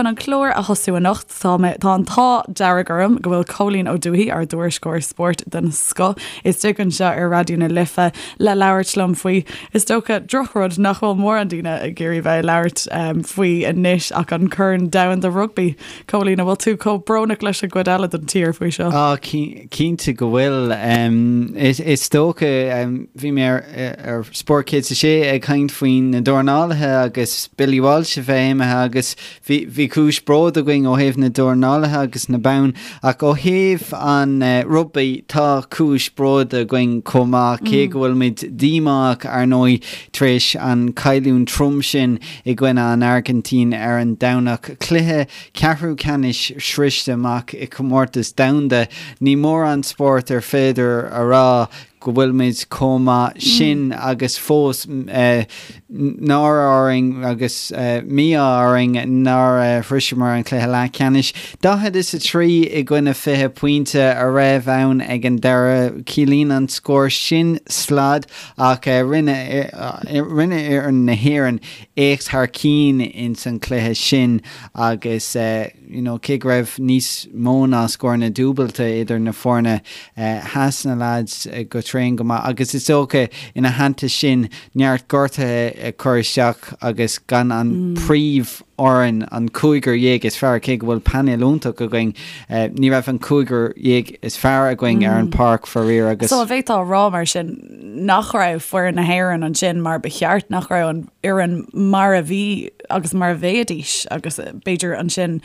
chun an clár a thosú anocht, tá mé, tá an t-ádh dearg orm go bhfuil Cóilín Ó Dúthaigh, ár dtuairisceoir spóirt den scoth, istigh anseo ar Raidió na Life le labhairt liom faoi, is dócha, drochrud nach bhfuil mórán daoine ag iarraidh bheith ag labhairt faoi anois ach an Corn Domhanda Rugbaí. Cóilín, an bhfuil tú chomh brónach leis an gcuid eile den tír faoi seo? Á, cinnte go bhfuil. Is dócha, bhí mé ar Spórt 106 ag caint faoi na dornálaithe agus Billy Walsh a bheith imithe agus bhí cúis bróid againn ó thaobh na dornálaithe agus na bonn ach ó thaobh an rugbaí tá cúis bróid againn chomh maith cé go bhfuilimid díomách ar ndóigh tar éis an cailliúint trom sin i gcoinne an Airgintín ar an Domhnach. Cluiche ceathrú ceannais sroiste amach i comórtas domhanda. Ní mórán spórt ar féidir a rá go bhfuilimid chomh maith sin agus fós náire orainn agus mí-ádh orainn nár shroiseamar an cluiche leathcheannais. 40 is 3 i gcoinne 20 pointe a raibh ann ag an deireadh. Ciallaíonn an scór sin slad Ach rinne fhoireann na hÉireann éacht thar cinn ins an chluiche sin agus you know cé go raibh níos mó ná scóranna dúbailte idir na foirne, sheas na lads go tréan go maith agus is dócha ina theannta sin neart gortuithe ag cur isteach agus gan an príomh fhoireann, an cúigear dhéag is fearr, cé go bhfuil painéal iontach againn, ní raibh an cúigear dhéag is fearr againn ar an páirc faraor agus. So an bhféadfá a rá mar sin nach raibh foireann na hÉireann ansin mar ba cheart, nach raibh an fhoireann mar a bhí agus mar a bheidís agus b'fhéidir ansin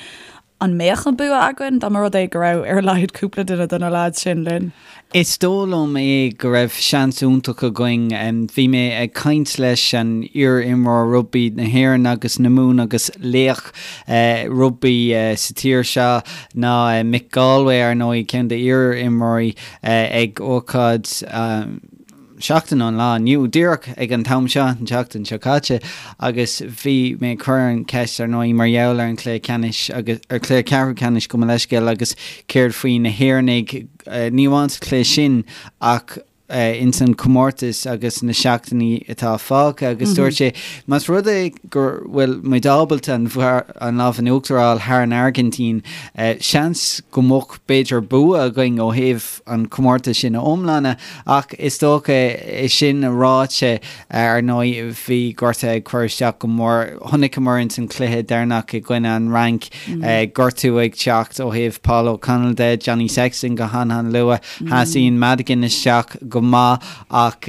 an mbeadh an bua againn dá mba rud é go raibh ar a laghad cúpla duine de na leaids sin linn? Is dóigh liom é go raibh seans iontach againn. Bhí mé ag caint leis an iar-imreoir rugbaí na hÉireann agus na Mumhan agus laoch rugbaí sa tír seo ná Mick Galwey, ar ndóigh, ceann d'iar-imreoirí ag ócáid seachtain ón lá inniu, díreach ag an t-am seo, an tseachtain seo caite, agus bhí mé ag cur an cheist, ar ndóigh, mar gheall ar an chluiche ceannais agus, ar chluiche ceathrú ceannais, gabh mo leithscéal, agus céard faoi na hÉireannaigh, ní amháin sa chluiche sin ach ins an chomórtas agus na seachtainí atá fágtha agus dúirt sé, más rud é go bhfuil muid ábalta an an lámh in uachtar a fháil thar an Airgintín, seans go mbeadh b'fhéidir bua againn ó thaobh an comórtas sin a iomláine ach is dócha é sin ráite, ar ndóigh, bhí gortuithe ag cur isteach go mór. Chonaiceamar ins an chluiche deireanach i gcoinne an Fhrainc, gortú ag teacht ó thaobh Paul O'Connell de, Johnny Sexton go han-han-luath, sheas Ian Madigan isteach go maith ach,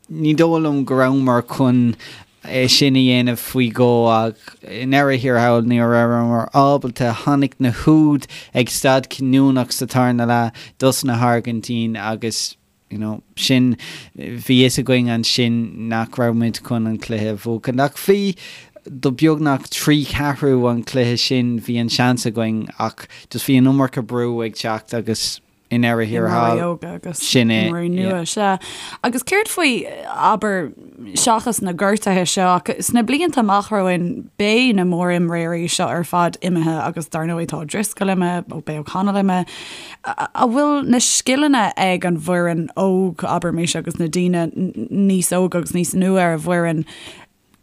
Ní dóigh liom go rabhamar chun é sin a dhéanamh faoi dhó ach i ndeireadh thiar thall ní rabhamar ábalta. Tháinig na húid ag staid chinniúnach sa tarna leath dos na hAirgintín agus you know sin, bhí fhios againn ansin nach raibh muid chun an cluiche a bhuachan. Ach bhí, do beagnach 3 cheathrú an chluiche sin bhí an seans againn ach just bhí an iomarca brú ag teacht agus i ndeireadh thiar thall. Imreoirí óga agus Sin é, imreoirí nua, sea. Agus céard faoi, abair, seachas na gortuithe seo, ach sna blianta amach romhainn, beidh na mórimreoirí seo ar fad imithe agus dar ndóigh tá O'Driscoll imithe, ó beidh O'Connell imithe. An bhfuil na scileanna ag an bhfoireann óg, abraimis, agus na daoine níos óga agus níos nua ar an bhfoireann,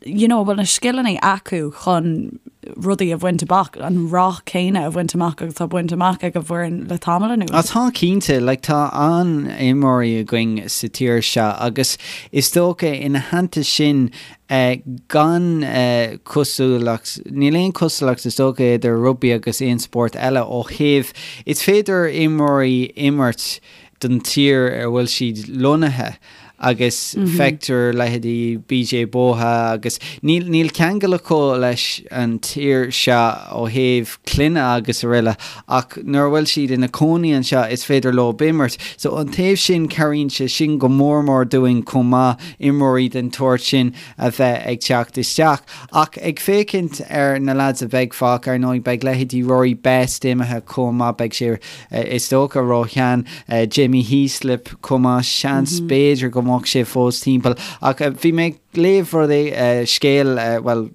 you know, an bhfuil na scileanna acu chun rudaí a bhaint amach, an rath céanna a bhaint amach agus atá bainte amach ag an bhfoireann le tamall anuas? Ah, tá cinnte, like tá an-imreoirí againn sa tír seo agus is dócha ina theannta sin eh, gan eh, cosúlacht, níl aon cosúlacht is dócha idir rugbaí agus aon spórt eile ó thaobh, is féidir imreoirí imirt don tír ar bhfuil siad lonnaithe agus feictear leithéidí BJ Botha agus níl níl ceangal acu leis an tír seo ó thaobh clainne agus araile ach nuair a bhfuil siad ina cónaí anseo is féidir leo imirt. So an taobh sin cabhraíonn sé sin go mór mór dúinn chomh maith imreoirí den tsórt sin a bheith ag teacht isteach. Ach ag féachaint ar na lads a bheidh fágtha, ar ndóigh beidh leithéidí Rory Best imithe chomh maith, beidh sé is dócha ró-shean, Jamie Heaslip chomh maith, seans b'fhéidir go mbeadh sé fós timpeall. Ach bhí mé ag léamh rud é, scéal, bhuel.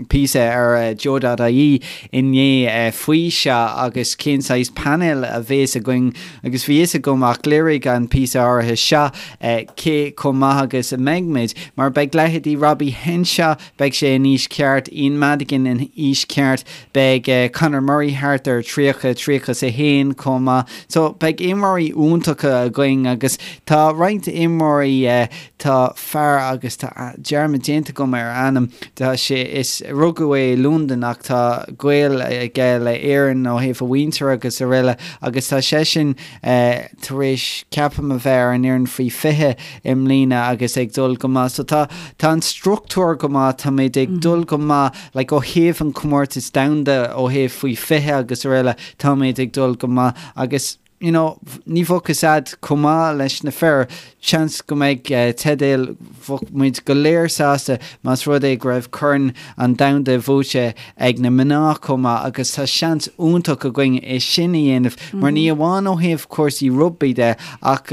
píosa ar Joe.ie inné faoi seo agus cén saghas painéil a bhéas againn agus bhí fhios agam ach léirigh an píosa áirithe seo cé chomh maith agus a mbeidh muid mar beidh leithéidí Robbie Henshaw, beidh sé in aois ceart, Ian Madigan in aois ceart, beidh Conor Murray thart ar 30, 31 chomh maith. So beidh imreoirí iontacha againn agus tá roinnt imreoirí, tá fear agus tá dearmad déanta agam ar a ainm, tá sé, is, rugadh é i Londain ach tá gaol aige le Éirinn ó thaobh a mhuintir agus araile agus tá seisean tar éis, ceapaim, a bheith ar an fhoireann faoi 20 i mbliana agus ag dul go maith. So tá, tá an struchtúr go maith, táimid ag dul go maith, like ó thaobh an comórtas domhanda, ó thaobh faoi 20 agus araile, táimid ag dul go maith agus, you know, ní bheadh fhios a'd chomh maith leis na fir, seans go mbeidh teideal, bheadh muid go léir sásta más rud é go raibh Corn an Domhanda buaite ag na mná chomh maith agus tá seans iontach againn é sin a dhéanamh mar ní amháin ó thaobh cúrsaí rugbaí de ach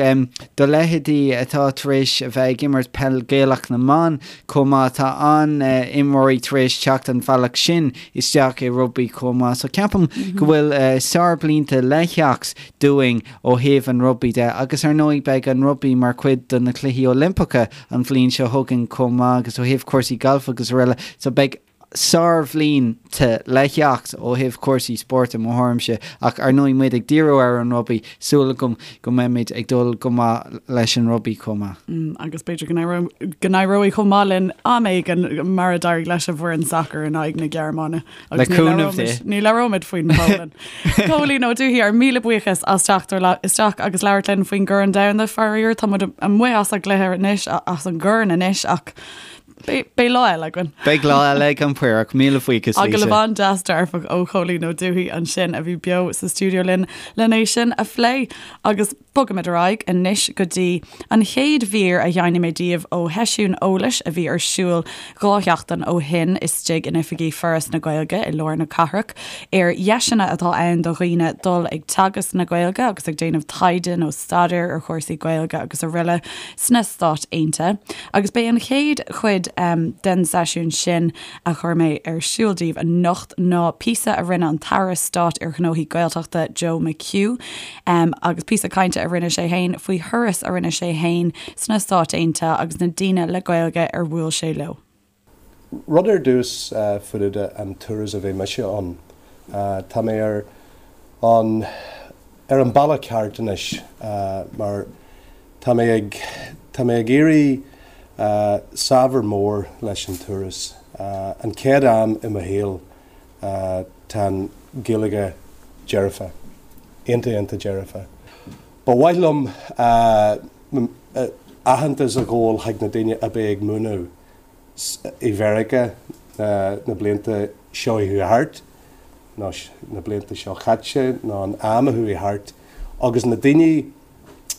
do leithéidí atá tar éis a bheith ag imirt peil Gaelach na mban chomh maith, tá an-imreoirí tar éis teacht an bhealach sin isteach i rugbaí chomh maith. So ceapaim go bhfuil sárblianta le theacht dúinn ó thaobh an rugbaí de agus ar ndóigh beidh an rugbaí mar chuid de na Cluichí Oilimpeacha an bhliain seo chugainn chomh maith agus ó thaobh cúrsaí gailf agus araile. So beidh sárbhlianta le theacht ó thaobh cúrsaí spóirt i mo thuairimse ach ar ndóigh muid ag díriú ar an rugbaí, súil agam go mbeimid ag dul go maith leis an rugbaí chomh maith. Agus b'fhéidir go n-éireoidh chomh maith linn am éigin mar a d'éirigh leis an bhfoireann sacair in aghaidh na Gearmáine. Le cúnamh Dé. Ní labhróimid faoin Pholainn. Cóilín Ó Dubhthaigh, ár míle buíochas as teacht isteach agus labhairt linn faoin gCorn Domhanda. Faraor, tá muid amuigh as an gcluiche anois, as an gcorn anois ach Beidh lá eile againn. Beidh lá eile ag an Paorach. Míle buíochas, Lisa. Agallamh an-deas dearfach ó Chóilín Ó Dubhthaigh ansin a bhí beo sa stiúideo linn len é sin a phlé. Agus bogaimid ar aghaidh anois go dtí an chéad mhír a sheinnfidh mé daoibh ó sheisiún eolais a bhí ar siúl 2 sheachtain ó shin istigh in oifigí Foras na Gaeilge i lár na cathrach ar dheiseanna atá ann do dhaoine dul ag teagasc na Gaeilge agus ag déanamh taighde nó staidéir ar chúrsaí Gaeilge agus araile sna Stáit Aontaithe. Agus b'é an chéad chuid den seisiún sin a chuir mé ar siúl daoibh anocht ná píosa a rinne an tAire Stáit ar Ghnóthaí Gaeltachta, Joe McHugh, agus píosa cainte a rinne sé fhéin faoi thuras a rinne sé fhéin sna Stáit Aontaithe agus na daoine le Gaeilge ar bhuail sé leo. Rud ar dtús faoi an turas a bhí mise ann. Tá mé ar an ar an bealach ceart anois mar tá mé ag tá mé ag éirí saibhir mór leis an turas. An chéad am i mo shaol tá an Ghaeilge dearfa. Iontach iontach dearfa. Ba mhaith liom aitheantas a ghabháil chuig na daoine a bheith ag múineadh i Mheiriceá na blianta seo a chuaigh thart, nó na blianta seo chaite, nó an am a chuaigh thart, agus na daoine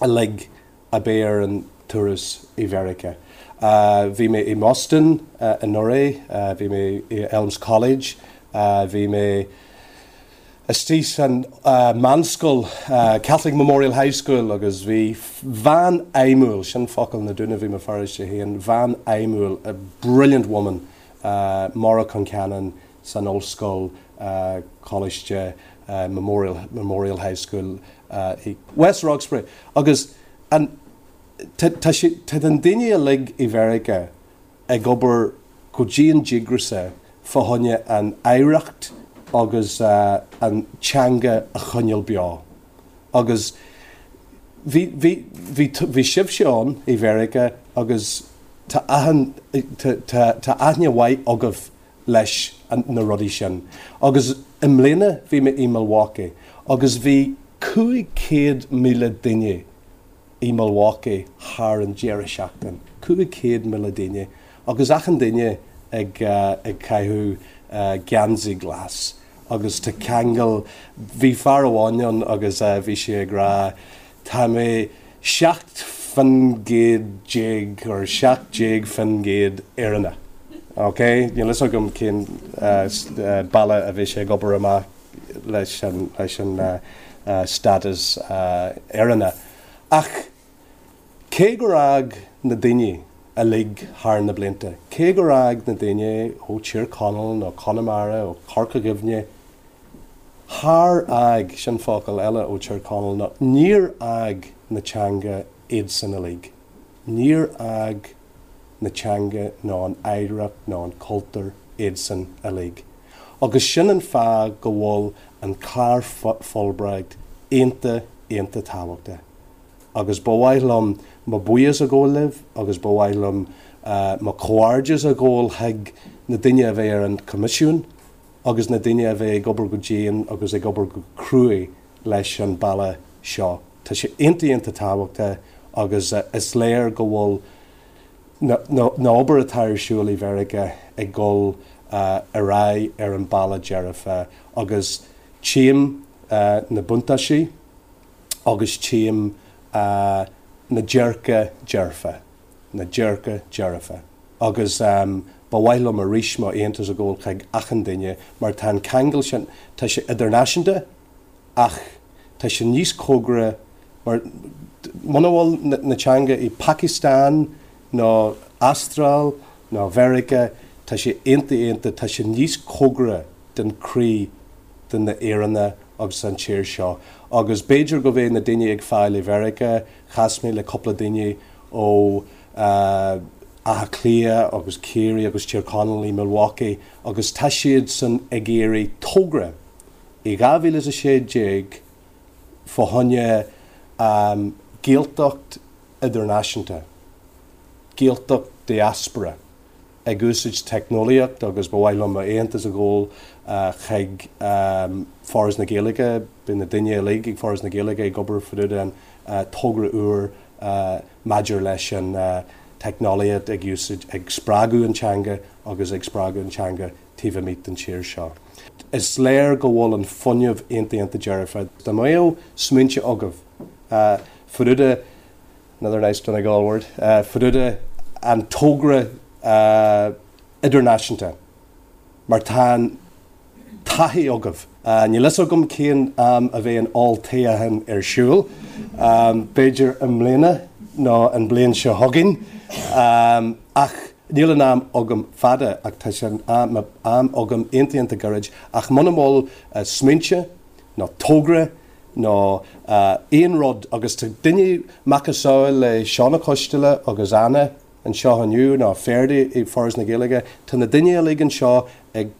uilig a bheith ar an turas i Mheiriceá. Bhí mé i mBoston anuraidh, bhí mé i Elms College, bhí mé istigh san meánscoil, Catholic Memorial High School, agus bhí bhean fheidhmiúil, sin focal na Dúnaibh i mo pharóiste féin, bhean fheidhmiúil, a brilliant woman, Maura Concannon san ollscoil, Coláiste Memorial, Memorial High School i West Roxbury. Agus an, tá, tá sé, tá na daoine uilig i Mheiriceá, ag obair go dian díograiseach fá choinne an oidhreacht agus an teanga a choinneáil beo. Agus bhí, bhí, bhí, bhí sibhse ann i Mheiriceá agus tá achan, tá, tá, tá aithne mhaith agaibh leis na rudaí sin. Agus i mbliana bhí mé i Milwaukee agus bhí 500,000 duine i Milwaukee thar an deireadh seachtain, 500,000 duine, agus achan duine ag ag caitheamh geansaí glas agus tá ceangal, bhí fear amháin ann agus bhí sé ag rá tá mé 17% or 17% Éireannach, ok? Níl fhios agam cén bealach a bhí sé ag obair amach leis an leis an status Éireannach. Ach cé gur fhág na daoine. uilig thar na blianta. Cé gur fhág na daoine ó Tír Chonaill nó Conamara, ó Chorca Dhuibhne, char fhág, sin focal eile ó Tír Chonaill, nó níor fhág na teanga iadsan uilig. Níor fhág na teanga nó an oidhreacht nó an cultúr iadsan uilig. Agus sin an fáth go bhfuil an clár Fulbright iontach, iontach tábhachtach. Agus ba mhaith liom mo buíochas a ghabháil libh agus ba mhaith liom mo chomhghairdeas a ghabháil chuig na daoine a bheidh ar an Choimisiún agus na daoine a bheidh ag obair go dian agus ag obair go cruaidh leis an bealach seo. Tá sé iontach iontach tábhachtach agus is léir go bhfuil na obair atá ar siúl i Mheiriceá ag dul ar aghaidh ar an bealach dearfa agus tchím na buntáistí agus tchím na dearca dearfa, na dearca dearfa. Agus ba mhaith liom arís mo aitheantas a ghabháil chuig achan duine mar tá an ceangal sin, tá sé idirnáisiúnta ach tá sé níos cóngaraí mar muna bhfuil na teanga i Pakistan nó Astráil nó Mheiriceá, tá sé iontach iontach, tá sé níos cóngaraí den croí de na Éireannaigh agus an tír seo. Agus b'fhéidir go bheidh na daoine ag fáil i Mheiriceá, chas mé le cúpla daoine ó Átha Cliath agus Ciarraí agus Tír Chonaill i Milwaukee agus tá siad san ag iarraidh togra i 2016 fá choinne Gaeltacht idirnáisiúnta, Gaeltacht diaspora. ag úsáid teicneolaíocht agus ba mhaith liom m'aitheantas a ghabháil chuig Foras na Gaeilge. Beidh na daoine uilig ag Foras na Gaeilge ag obair fá dtaobh den togra úr maidir leis an teicneolaíocht ag úsáid, ag spreagadh an teanga agus ag spreagadh an teanga taobh amuigh den tír seo. Is léir go bhfuil an fuinneamh iontach iontach dearfa. Dá mbeadh smaointe agaibh fá dtaobh de Another nice Donegal word. Fá dtaobh de an togra idirnáisiúnta mar tá an taithí agaibh. Níl fhios agam cén am a bheidh an olltoghchán ar siúl, b'fhéidir i mbliana nó an bliain seo chugainn, ach níl an am agam fada ach tá sé an am agam iontach iontach gairid ach muna bhfuil smaointe nó togra nó aon rud agus tá duine macasamhail le Seán Ó Coisteala agus Anna anseo inniu nó Ferdi i Foras na Gaeilge, tá na daoine uilig anseo ag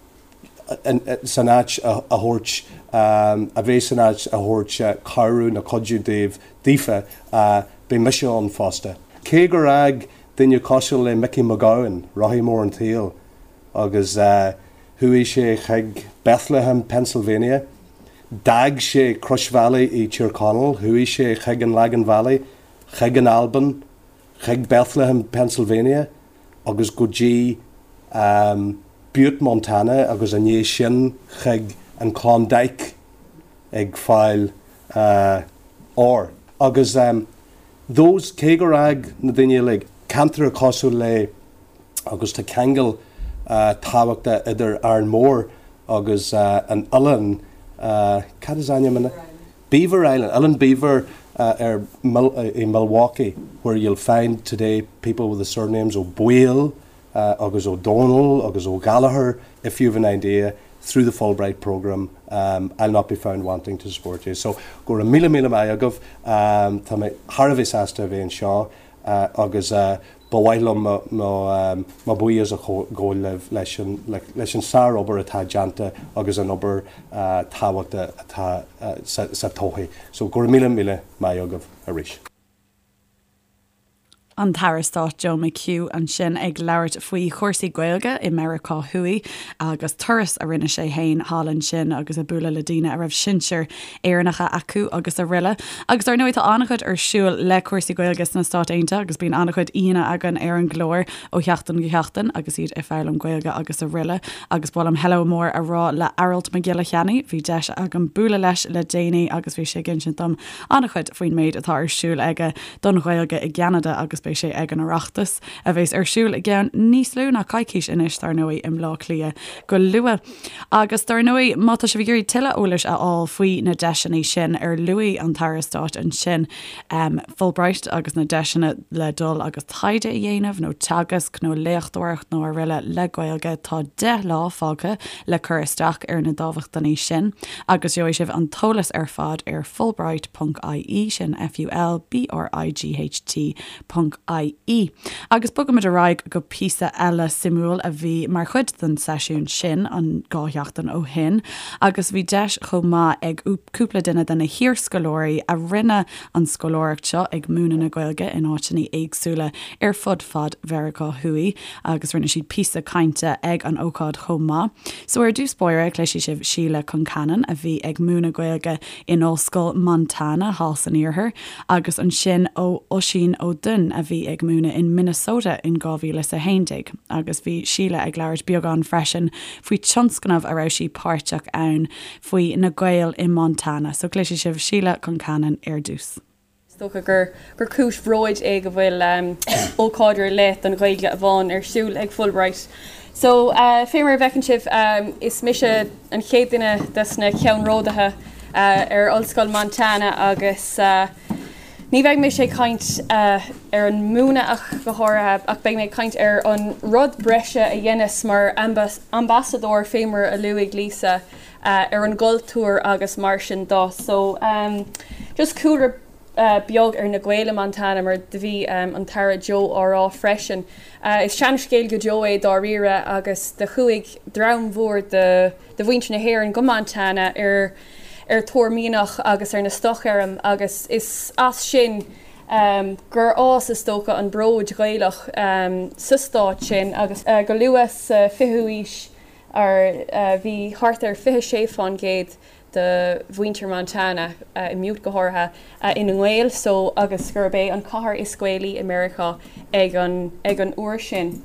san áit a thabhairt a bheith san áit a thabhairt cabhrú nó cuidiú daoibh daofa beidh mise ann fosta. Cé gur fhág duine cosúil le Mickey Mac Gabhann, rothaí mór an tsaoil agus chuaigh sé chuig Bethlehem, Pennsylvania, D'fhág sé Croisbhealaí i Tír Chonaill, chuaigh sé chuig an Lagan Valley, chuig an Albain, chuig Bethlehem, Pennsylvania agus go dtí Butte, Montana agus i ndiaidh sin chuig an Klondike ag fáil óir. Agus those, cé gur fhág na daoine uilig ceantar cosúil le agus tá ceangal tábhachtach idir Árainn Mhór agus an oileán, cad is ainm an Beaver Island, Oileán Beaver ar i Milwaukee where you'll find today people with the surnames Ó Baoill agus Ó Dónaill agus Ó Gallchóir if you've an idea through the Fulbright programme I'll not be found wanting to support you. So go raibh míle míle maith agaibh, tá mé thar a bheith sásta a bheith anseo agus ba mhaith liom mo bhuíochas a ghabháil libh leis an leis an sárobair atá déanta agus an obair tábhachtach atá sa todhchaí. So go raibh míle míle maith agaibh arís. An tAire Stáit Joe McHugh ansin ag labhairt faoi chúrsaí Gaeilge i Meiriceá Thuaidh agus turas a rinne sé féin thall ansin agus ag bualadh le daoine a raibh sinsir Éireannacha acu agus araile. Agus dar ndóigh tá an-chuid ar siúl le cúrsaí Gaeilge sna Stáit Aontaithe agus bíonn an-chuid aíonna againn ar an gclár ó sheachtain go sheachtain agus iad ag foghlaim Gaeilge agus araile. Agus ba mhaith liom hello mór a rá le Aralt Mac Giolla Cheannaigh, bhí deis agam bualadh leis le déanaí agus bhí sé ag insint dom an-chuid faoin méid atá ar siúl aige don Ghaeilge i gCeanada agus. beidh sé ag an Oireachtas, a bheas ar siúl i gceann níos lú ná coicís anois, dar ndóigh, i mBleá Cliath go luath. Agus dar ndóigh, má tá sibh ag iarraidh tuilleadh eolais a fháil faoi na deiseanna sin ar luaigh an tAire Stáit ansin, Fulbright agus na deiseanna le dul agus taighde a dhéanamh nó teagasc nó léachtóireacht nó araile le Gaeilge, tá 10 lá fágtha le cur isteach ar na dámhachtainí sin agus gheobhaidh sibh an t-eolas ar fad ar fulbright ponc ie, sin F-U-L-B-R-I-G-H-T ponc ie. Agus bogaimid ar aghaidh go píosa eile suimiúil a bhí mar chuid den seisiún sin an 2 sheachtain ó shin agus bhí deis chomh maith ag cúpla duine de na hiarscoláirí a rinne an scoláireacht seo ag múineadh na Gaeilge in áiteanna éagsúla ar fud fad Mheiriceá Thuaidh agus rinne siad píosa cainte ag an ócáid chomh maith. So ar dtús báire cloisfidh sibh Síle Concannon a bhí ag múineadh Gaeilge in Ollscoil Montana thall san iarthar agus ansin ó Oisín Ó Duinn a bhí ag múineadh in Minnesota in 2011 agus bhí Síle ag labhairt beagán freisin faoi tionscnamh a raibh sí páirteach ann faoi na Gaeil i Montana. So cloisfidh sibh Síle Concannon ar dtús. Is dócha gur gur cúis bhróid é go bhfuil ócáid ar leith don Ghaeilge amháin ar siúl ag Fulbright. So, fé mar a bhfeiceann sibh, is mise an chéad duine des na ceannródaithe ar Ollscoil Montana agus ní bheidh mise ag caint ar an múineadh ach go háirithe ach beidh mé ag caint ar an rud breise a dheineas mar ambasadóir fé mar a luaigh Lisa ar an gcultúr agus mar sin do. So, just cúlra beag ar na Gaeil i Montana mar do bhí an tAire Joe á rá freisin. Is seanscéal go deo é dáiríre agus do chuaigh dream mhór de de mhuintir na hÉireann go Montana ar ar thóir mianach agus ar na stoc-fheirm agus is as sin gur fhás is dócha an bród Gaelach sa stát sin agus go luath sa 20ú aois ar bhí thart ar 26 fán gcéad de mhuintir Montana, i mButte go háirithe, ina nGaeil so agus gurb é an cathair is Gaelaí i Meiriceá ag an ag an uair sin.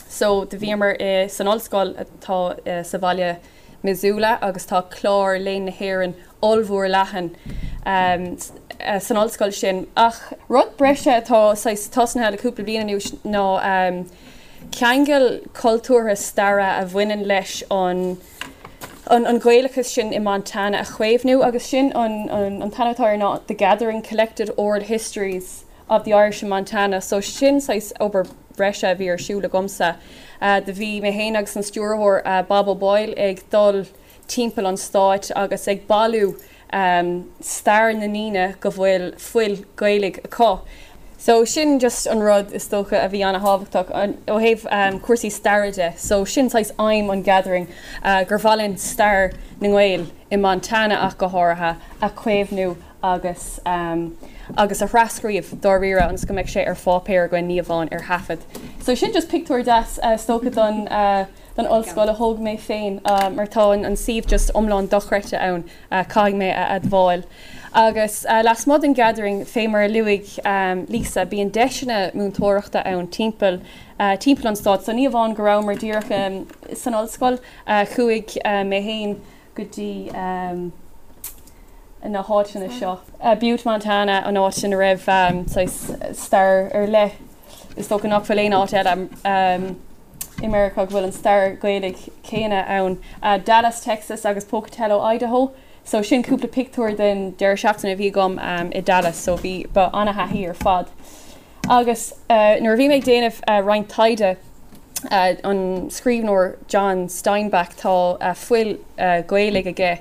So do bhíomar i san ollscoil atá sa bhaile Missoula agus tá clár Léann na hÉireann ollmhór leathan san ollscoil sin. Ach rud breise atá saghas tosnaithe le cúpla bliain anuas ná ceangal cultúrtha staire a bhaineann leis an an Ghaelachas sin i Montana a chaomhnú agus sin an an t-ainm atá air ná The Gathering Collected Oral Histories of the Irish in Montana so sin saghas obair bhreise a bhí ar siúl agamsa. Do bhí mé féin agus an stiúrthóir Bob O'Boyle ag dul timpeall an stáit agus ag bailiú stair na ndaoine go bhfuil fuil Gaelaigh acu. So sin just an rud is dócha a bhí ana-thábhachtach ó thaobh cúrsaí staire de. So sin saghas aidhm an Gathering, gur mhaith linn stair na nGael i Montana ach go háirithe a chaomhnú agus agus a thrascríobh dáiríre ionas go mbeidh sé ar pháipéar againn, ní amháin ar thaifead. So sin just pictiúr deas is dócha don don ollscoil a thóg mé féin mar tá an suíomh just iomlán dochreidte ann, caithfidh mé a admháil. Agus lasmuigh den Gathering, fé mar a luaigh Lisa, bíonn deiseanna múinteoireachta ann timpeall timpeall an stáit. So ní amháin go rabhamar díreach san ollscoil, chuaigh mé féin go dtí na háiteanna seo. Butte, Montana, an áit ina raibh saghas stair ar leith, is dócha nach bhfuil aon áit eile i Meiriceá go bhfuil an stair Ghaelaigh céanna ann. Dallas, Texas agus Pocatello, Idaho. So sin cúpla pictiúr den deireadh seachtaine a bhí agam i Dallas, so bhí, ba ana-thaithí ar fad. Agus nuair a bhí mé ag déanamh roinnt taighde, an scríbhneoir John Steinbeck, tá fuil Ghaelaigh aige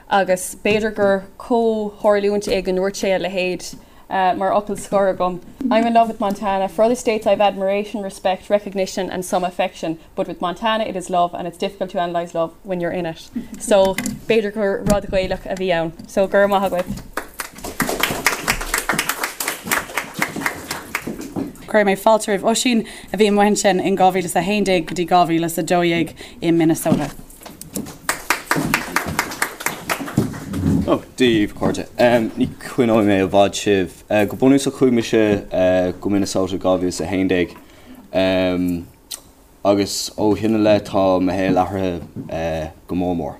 agus b'fhéidir gur comhtharlúint é go ndúirt sé a leithéid mar fhocal scoir agam, I'm in love with Montana. For other states I've admiration, respect, recognition and some affection, but with Montana it is love and it's difficult to analyse love when you're in it. So b'fhéidir gur rud Gaelach a bhí ann. So go raibh maith agaibh. Cuirfidh mé fáilte roimh Oisín, a bhí amuigh ansin in 2011 go dtí 2012 i Minnesota. Ó, Dia daoibh, a chairde. Ní choinneoidh mé i bhfad sibh. Go bunúsach chuaigh mise go Minnesota 2011 agus ó shin i leith tá mo shaol athraithe go mór mór.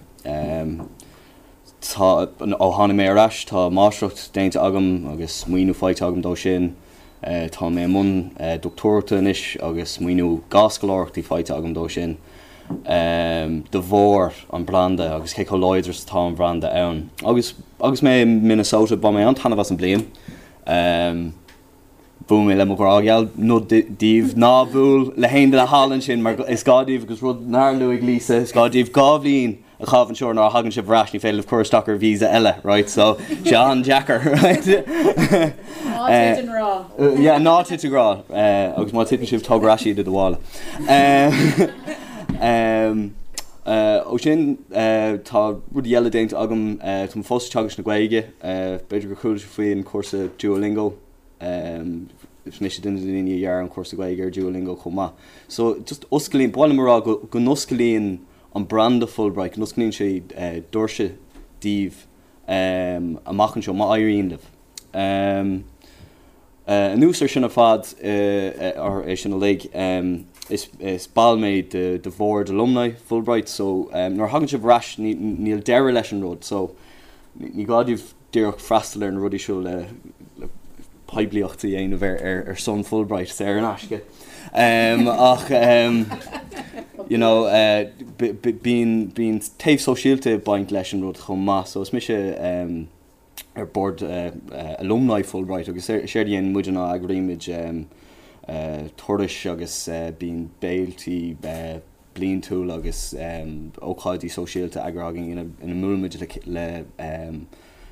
Tá, ó tháinig mé ar ais tá máistreacht déanta agam agus maoiniú faighte agam dó sin. Tá mé i mbun dochtúireachta anois agus maoiniú 2 scoláireachtaí faighte agam dó sin de bharr an branda agus cé chomh láidir is atá an bhranda ann. Agus agus mé i Minnesota bhain mé an-taitneamh as an bliain. Bhuail mé le mo ghrá gheal, nod daoibh, ná buail le haon duine thall ansin mar is gá daoibh agus rud nár luaigh Lisa, is gá daoibh 2 bhliain a chaitheamh anseo nuair a thagann sibh ar ais, ní féidir libh cur isteach ar visa eile, right, so sé an-deacair, right? Ná tit i ngrá. Yeah, ná tit i ngrá, agus má titeann sibh, tóg ar ais iad i do mhála. Ó sin, tá rudaí eile déanta agam, tá mé fós ag teagasc na Gaeilge, b'fhéidir gur chuala sibh faoin chúrsa Duolingo, Is mise duine de na daoine a dhear an cúrsa Gaeilge ar Duolingo chomh maith. So, just osclaíonn, ba mhaith liom a rá go go n-osclaíonn an branda Fulbright, go n-osclaíonn sé doirse daoibh amach anseo, má éiríonn libh. Anuas ar sin ar fad, ar é sin uilig, is is ball mé de de bhord alumni Fulbright, so nuair a thagann sibh ar ais ní níl deireadh leis an rud, so ní gá daoibh díreach freastal ar na rudaí seo le poiblíocht a dhéanamh ar son Fulbright saor in aisce. Ach you know bíonn bíonn taobh sóisialta ag baint leis an rud chomh maith so is mise ar bord alumni Fulbright agus séard a dhéanann muid ná eagraímid turais agus bíonn béiltí bliantúil agus ócáidí sóisialta eagraithe againn ina mbuailimid le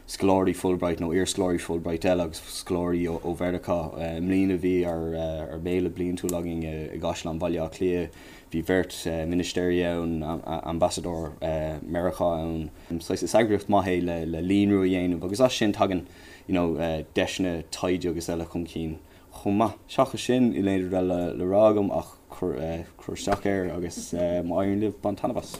scoláirí Fulbright nó iarscoláirí Fulbright eile agus scoláirí ó Mheiriceá. I mbliana bhí ár mbéile bliantúil againn i gCaisleán Bhaile Átha Cliath. Bhí beirt ministéirí ann, ambasadóir Meiriceá ann. Saghas is eagraíocht maith é le líonrú a dhéanamh agus as sin tagann you know deiseanna taighde agus eile chun cinn. chomh maith. Seachas sin, níl aon rud eile le rá agam ach cuir isteach air agus má éiríonn libh, bain taitneamh as.